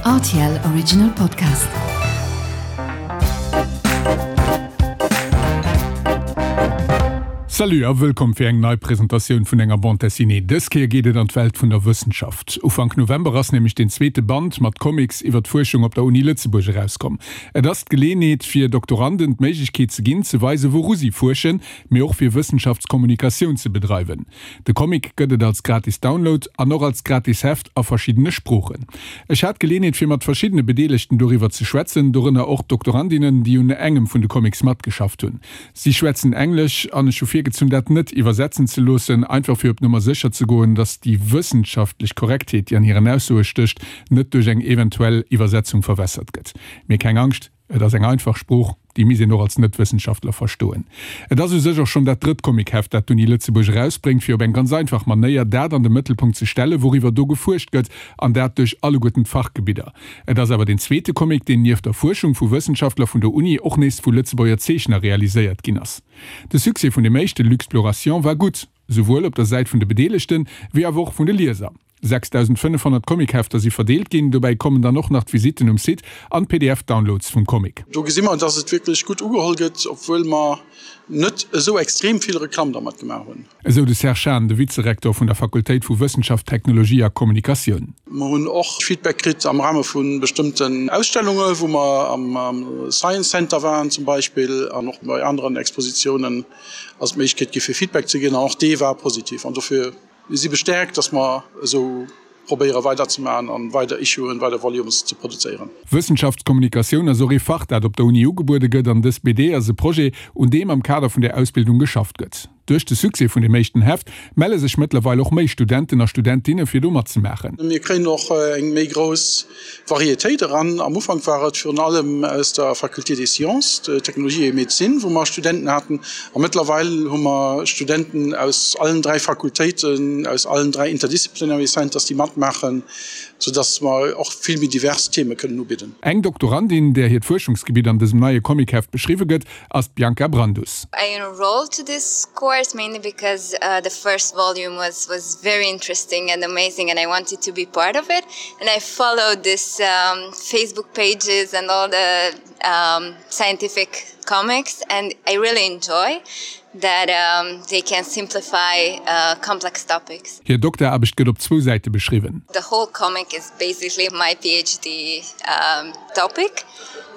Rtl Original Podcast. Salut a wëllkomm fir eng nei Presentatioun vun enger Bande Dessinée. Dës Kéier geet et an d'Welt vun der Wëssenschaft. Ufank November ass nämlech deen zweete Band mat Comics iwwer d'Fuerschung op der Uni Lëtzebuerg erauskomm. Et ass d'Geleenheet fir Doktoranden d'Méiglechkeet ze ginn, ze weisen, wouru si fuerschen, mee och fir Wëssenschaftskommunikatioun ze bedreiwen. De Comic gëtt et als gratis Download an och als gratis Heft a verschiddene Sproochen. Ech hat d'Geleenheet fir mat verschiddene Bedeelegten doriwwer ze schwätzen, dorënner och Doktorandinnen, déi un engem vun de Comics matgeschafft hunn. Si schwätzen Englesch an ech hu virgezunn dat net iwwersetzen ze loossen, einfach fir op Nummer sécher ze goen, datt déi wëssenschaftlech Korrektheet, déi an hiren Aussoe stécht, net duerch eng eventuell Iwwersetzung verwässert gëtt. Mee keng Angscht, Et ass eng einfach Sprooch, déi misst een och als Net-Wëssenschaftler verstoen. Et ass u sech och schonn dat drëtt Comic-Heft, dat d'Uni Lëtzebuerg erausbréngt, fir op eng ganz einfach Manéier dat an de Mëttelpunkt ze stellen, wouriwwer do gefuerscht gëtt, an dat duerch alleguerten d'Fachgebidder. Et ass awer deen zweete Comic, deen nieft der Fuerschung vu Wëssenschaftler vun der Uni och nees vu Lëtzebuerger Zeechner realiséiert ginn ass. De Succès vun dem éischte Luxploration war gutt, souwuel op der Säit vun de Bedeelegten, wéi awer och vun de Lieser. 6.500 Comichefter si verdeelt ginn, dobäi kommen dann och nach d'Visitten um Site an d'PDF-Downloads vum Comic. Do gesi mer, dass et wierklech gutt ugeholl gëtt, obwuel mer net esou extrem vill Reklamm dermat gemaach hunn. Esou de Serge Hahn, de Vizerektor vun der Fakultéit vu Wëssenschaft, Technologie a Kommunikatioun. Mer hunn och Feedback kritt am Rahme vu bestëmmten Ausstellunge wou mer am Science Center waren zum Beispill an och bei aneren Expositiounen ass et d'Méiglechkeet gi fir Feedback ze ginn an och dee war positiv an dofir Mir si bestäerkt, dass mer esou probéiere weiderzemaachen an weider Issuen, weider Volumes ze produzéieren. Wëssenschaftskommunikatioun ass och ee Fach, dat op der Uni ugebuede gëtt an dës BD ass e Projet, un deem am Kader vun där Ausbildung geschafft gëtt. Duerch de Succès vun dem éischten Heft melle sech mëttlerweil och méi Studenten a Studentinne fir do matzemaachen. Mir kréien och eng méi grouss Varietéit eran. Am Ufank war et virun allem aus der Faculté des Sciences, Technologie et Médecine, wou mer Studenten haten. A mëttlerweil hu mer Studenten aus allen 3 Fakultéiten, aus allen 3 Interdisciplinary Centers, déi matmaachen, soudass mer och vill méi divers Theme kënnen ubidden. Eng Doktorandin, där hiert Fuerschungsgebitt an dësem neie Comicheft beschriwwe gëtt, ass d'Bianca Brandus. I enrolled to this course mainly because the first volume was was very interesting and amazing and I wanted to be part of it and I followed this Facebook pages and all the scientific comics and I really enjoy that they can simplify complex topics. Hir Dokteraarbecht gëtt op zwou Säite beschriwwen. The whole comic is basically my PhD topic.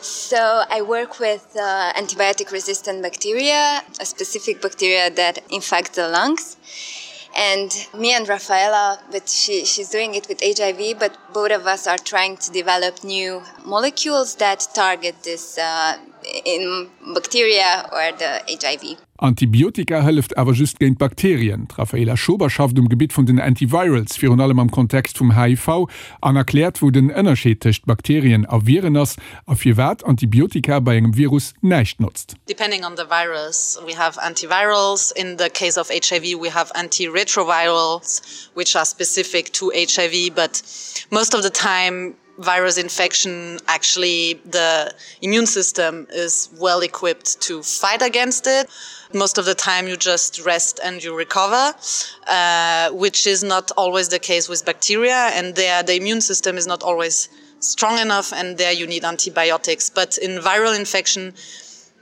So I work with uh, antibiotic resistant bacteria, a specific bacteria that infects the lungs. And me and Rafaela, but she, she's doing it with HIV, but both of us are trying to develop new molecules that target this uh, in bacteria or the HIV. Antibiotika hëlleft awer just géint Bakterien. D'Raphaela Schober schafft um Gebitt vun den Antivirals, virun allem am Kontext vum HIV, an erkläert, wou den Ënnerscheed tëscht Bakterien a Viren ass a firwat Antibiotika bei engem Virus näischt notzt. Depending on the virus, we have antivirals. In the case of HIV, we have antiretrovirals, which are specific to HIV, but most of the time virus infection actually the immune system is well equipped to fight against it most of the time you just rest and you recover uh, which is not always the case with bacteria and there the immune system is not always strong enough and there you need antibiotics but in viral infection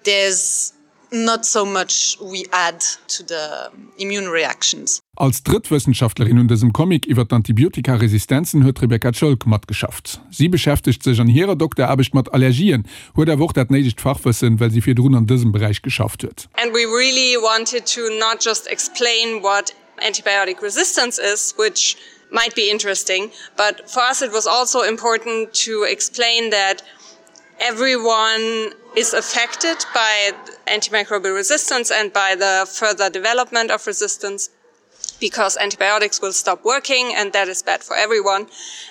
there's not so much we add to the immune reactions. Als drëtt Wëssenschaftlerin un dësem Comic iwwer d'Antibiotikaresistenzen huet d'Rebecca Ciolk matgeschafft. Si beschäftegt sech an hirer Dokteraarbecht mat Allergien, huet awer och dat néidegt Fachwëssen, well si virdrun an dësem Beräich geschafft huet. And we really wanted to not just explain what antibiotic resistance is, which might be interesting, but for us it was also important to explain that everyone is affected by antimicrobial resistance and by the further development of resistance because antibiotics will stop working and that is bad for everyone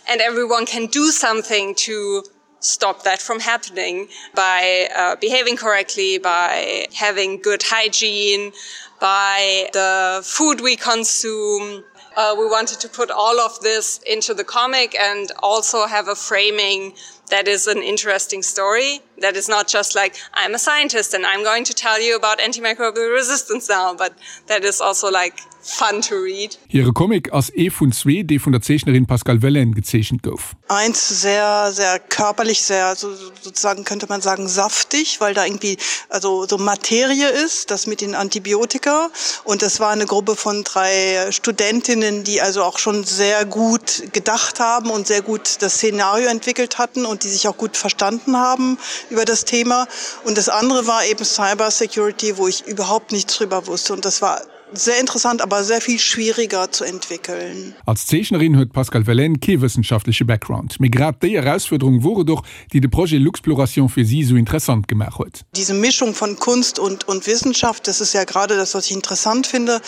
and everyone can do something to stop that from happening by uh, behaving correctly by having good hygiene by the food we consume uh, we wanted to put all of this into the comic and also have a framing that is an interesting story that is not just like I'm a scientist and I'm going to tell you about antimicrobial resistance now but that is also like. fun to read. Hire Comic ass ee vun zwee, dee vun der Zeechnerin Pascale Wellen gezeechent gouf. Eins sehr sehr körperlich sehr so sozusagen könnte man sagen saftig, weil da irgendwie also so Materie ist, das mit den Antibiotika und das war eine Gruppe von drei Studentinnen, die also auch schon sehr gut gedacht haben und sehr gut das Szenario entwickelt hatten und die sich auch gut verstanden haben über das Thema. Und das andere war eben Cybersecurity, wo ich überhaupt nichts drüber wusste und das war sehr interessant, aber sehr viel schwieriger zu entwickeln. Als Zeechnerin huet d'Pascale Wellen kee wëssenschaftleche Background, mee grad déi Erausfuerderung wor et och, déi de Projet Luxploration fir si esou interessant gemaach huet. Diese Mischung von Kunst und und Wissenschaft, das ist ja gerade das, was ich interessant finde.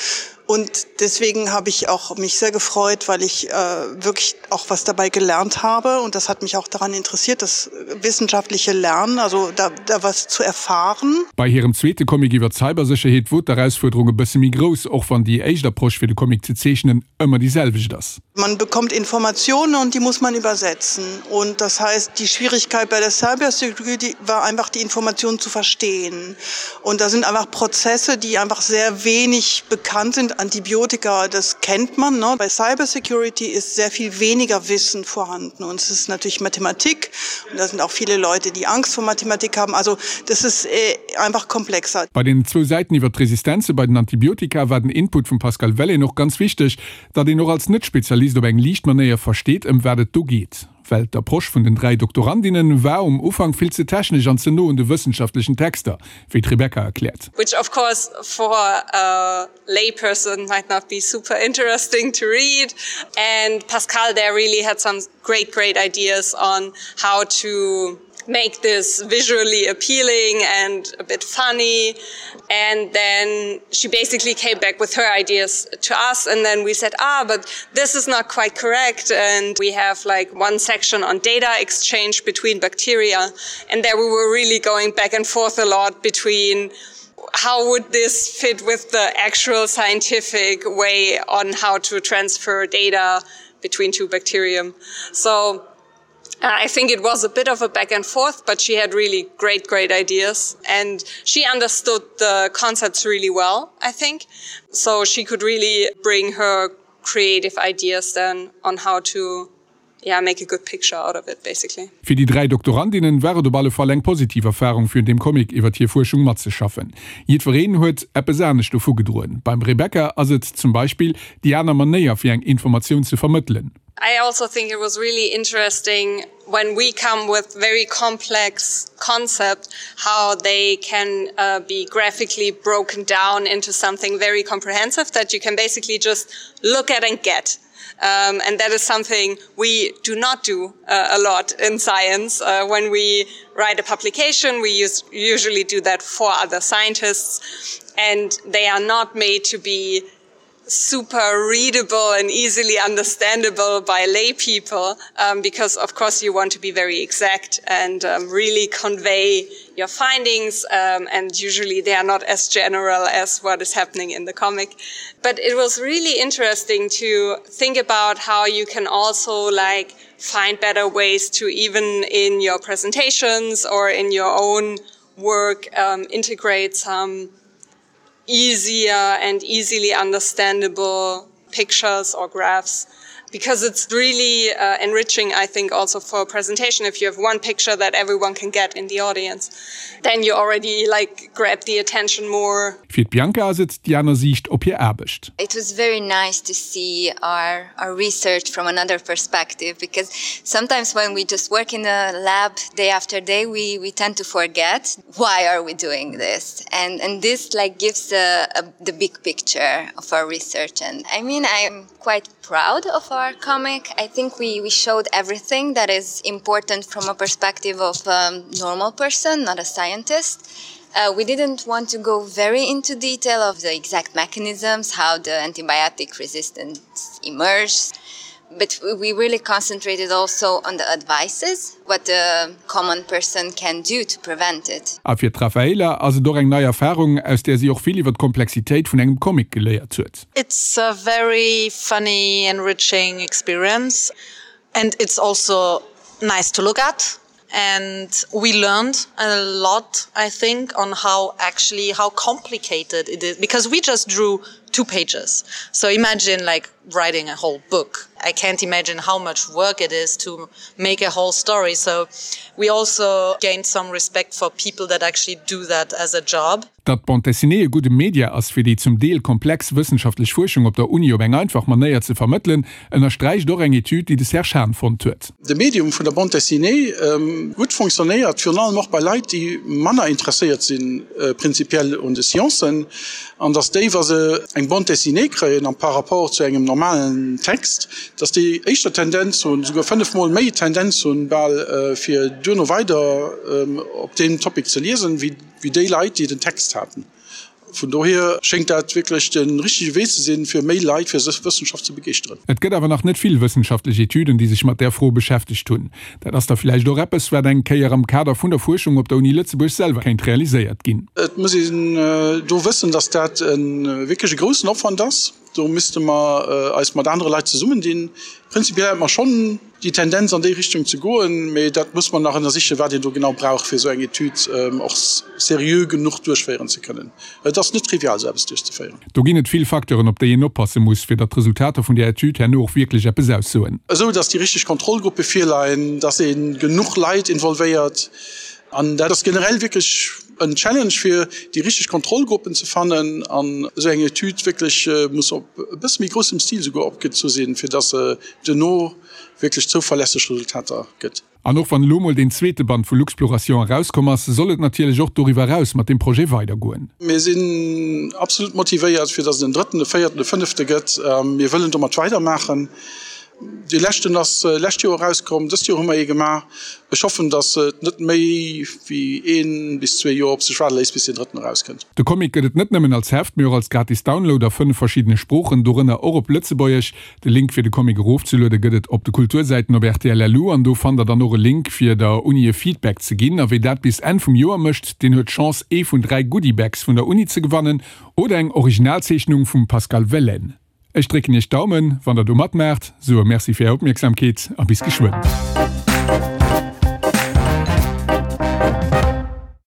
Und deswegen habe ich auch mich sehr gefreut, weil ich äh, wirklich auch was dabei gelernt habe. Und das hat mich auch daran interessiert, das wissenschaftliche Lernen, also da, da was zu erfahren. Bei hirem zweete Comic iwwer d'Cybersécherheet wor d'Erausfuerderung e bësse méi grouss, och wann déi éischt Approche fir de Comic ze zeechnen ëmmer déi selwecht ass. Man bekommt Informationen und die muss man übersetzen. Und das heißt, die Schwierigkeit bei der Cybersecurity war einfach die Informationen zu verstehen. Und da sind einfach Prozesse, die einfach sehr wenig bekannt sind. Antibiotika, das kennt man. Ne? Bei Cybersecurity ist sehr viel weniger Wissen vorhanden. Und es ist natürlich Mathematik. Und da sind auch viele Leute, die Angst vor Mathematik haben. Also das ist äh, einfach komplexer. Bei den zwou Säiten iwwer d'Resistenze bei den Antibiotika war den Input vum Pascale Wellen och ganz wichteg, datt een och als Net-Spezialist op eng liicht Manéier versteet, ëm wat et do geet. Well d'Approche vun den 3 Doktorandinnen war um Ufank vill ze technesch an ze no un de wëssenschaftlechen Texter, wéi d'Rebecca erkläert. Which of course for a layperson might not be super interesting to read. And Pascal there really had some great, great ideas on how to make this visually appealing and a bit funny. And then she basically came back with her ideas to us and then we said, ah, but this is not quite correct. And we have like one section on data exchange between bacteria. And there we were really going back and forth a lot between how would this fit with the actual scientific way on how to transfer data between two bacterium. So Uh, I think it was a bit of a back and forth, but she had really great, great ideas and she understood the concepts really well, I think. So she could really bring her creative ideas then on how to yeah, make a good picture out of it basically. Fir déi 3 Doktorandinnen war et op alle Fall eng positiv Erfarung fir un deem Comic iwwert hir Fuerschung matzeschaffen. Jiddwereen huet eppes anescht dovu gedroen. Beim Rebecca ass et zum Beispill déi aner Manéier fir eng Informatioun ze vermëttelen. I also think it was really interesting when we come with very complex concept how they can uh, be graphically broken down into something very comprehensive that you can basically just look at and get. Um, and that is something we do not do uh, a lot in science. Uh, when we write a publication, we use, usually do that for other scientists, and they are not made to be super readable and easily understandable by lay people um, because of course you want to be very exact and um, really convey your findings um, and usually they are not as general as what is happening in the comic but it was really interesting to think about how you can also like find better ways to even in your presentations or in your own work um, integrate some easier and easily understandable pictures or graphs because it's really uh, enriching I think also for a presentation if you have one picture that everyone can get in the audience then you already like grab the attention more. Fir d'Bianca ass et déi aner Siicht op hir Aarbecht. It was very nice to see our our research from another perspective because sometimes when we just work in a lab day after day we we tend to forget why are we doing this and and this like gives a, a, the big picture of our research and I mean I'm quite proud of our comic. I think we we showed everything that is important from a perspective of a um, normal person, not a scientist. Uh, we didn't want to go very into detail of the exact mechanisms, how the antibiotic resistance emerged but we really concentrated also on the advices what the common person can do to prevent it. A fir d'Rafaela ass et och eng nei Erfarung, aus där si och vill iwwer d'Komplexitéit vun engem Comic geléiert huet. It's a very funny, enriching experience and it's also nice to look at and we learned a lot, I think, on how actually how complicated it is because we just drew. Two pages. So imagine like writing a whole book. I can't imagine how much work it is to make a whole story. So we also gained some respect for people that actually do that as a job. Datt d'Bande dessinée e gudde Media ass, fir déi zum Deel komplex wëssenschaftlech Fuerschung op der Uni op eng einfach Manéier ze vermëttelen, ënnersträicht och eng Etüd, déi de Serge Hahn fonnt huet. De Medium vun der Bande dessinée gutt fonctionnéiert, virun allem och bei Leit, déi manner interesséiert si prinzipiell un de Sciencen, an datt déi, wa se eng Bande dessinée kréien am par rapport zu engem normalen Text, datt déi éischter Tendenz hunn, souguer fënnefmol méi Tendenz hunn bal, fir duerno weider op deem Topic ze liesen, wéi. wéi déi Leit, déi den Text haten. Vun dohier schéngt dat wierklech de richtege Wee ze sinn, fir méi Leit fir Wëssenschaft ze begeeschteren. Et gëtt awer nach net vill wëssenschaftlech Etüden, déi sech mat där Fro beschäftegt hunn. Dat ass da villäicht och eppes, wat eng Kéier am Kader vun der Fuerschung op der Uni Lëtzebuerg selwer kéint realiséiert ginn. Et muss een do wëssen, dass dat e wierklech e groussen Opwand ass. Do misste mer eis mat anere Leit zesummendinn. Prinzipiell hätte mer schonn déi Tendenz an déi Richtung ze goen, mee dat muss mer nach ënnersichen, wat een do genau brauch, fir esou eng Etüd och seriö genuch duerchféieren ze kënnen. Et ass net trivial, esou eppes duerchzeféieren. Do ginn et vill Facteuren, op déi een oppasse muss, fir datt d'Resultater vun där Etüd herno och wierklech eppes aussoen. Esou datt déi richteg Kontrollgruppe virleien, datt ee genuch Leit involvéiert. An dat ass generell wierklech en Challenge, fir déi richteg Kontrollgruppen ze fannen. An esou eng Etüd wierklech muss op e bësse méi groussem Stil souguer opgezu sinn, fir datt se duerno wierklech zouverlässeg Resultater gëtt. An och wann elo mol deen zweete Band vu Luxploration erauskomm ass, soll et natierlech och doriwwer eraus mat deem Projet weidergoen. Mir sinn absolut motivéiert, fir datt et en drëtten, e véierten, e fënnefte gëtt. Mir wëllen domat weidermaachen. Dee leschten ass lescht Joer erauskomm, dëst Joer hu mer ee gemaach. Ech hoffen, datt et net méi wéi ee bis zwee Joer op sech waarde léisst, bis deen drëtten erauskënnt. De Comic gëtt et net nëmmen als Heft, mee och als gratis Download a 5 verschiddene Sproochen, dorënner och op Lëtzebuergesch. De Link fir de Comic erofzeluede gëtt et op de Kultursäiten op rtl.lu an do fannt der dann och e Link fir der Uni e Feedback ze ginn. A wie dat bis Enn vum Joer mécht, deen huet d'Chance ee vun 3 Goodiebags vun der Uni ze gewannen oder eng Originalzeechnung vum Pascal Wellen. Ech drécken iech d'Daumen wann der do matmaacht. Sou e Merci fir är Opmierksamkeet a bis geschwënn.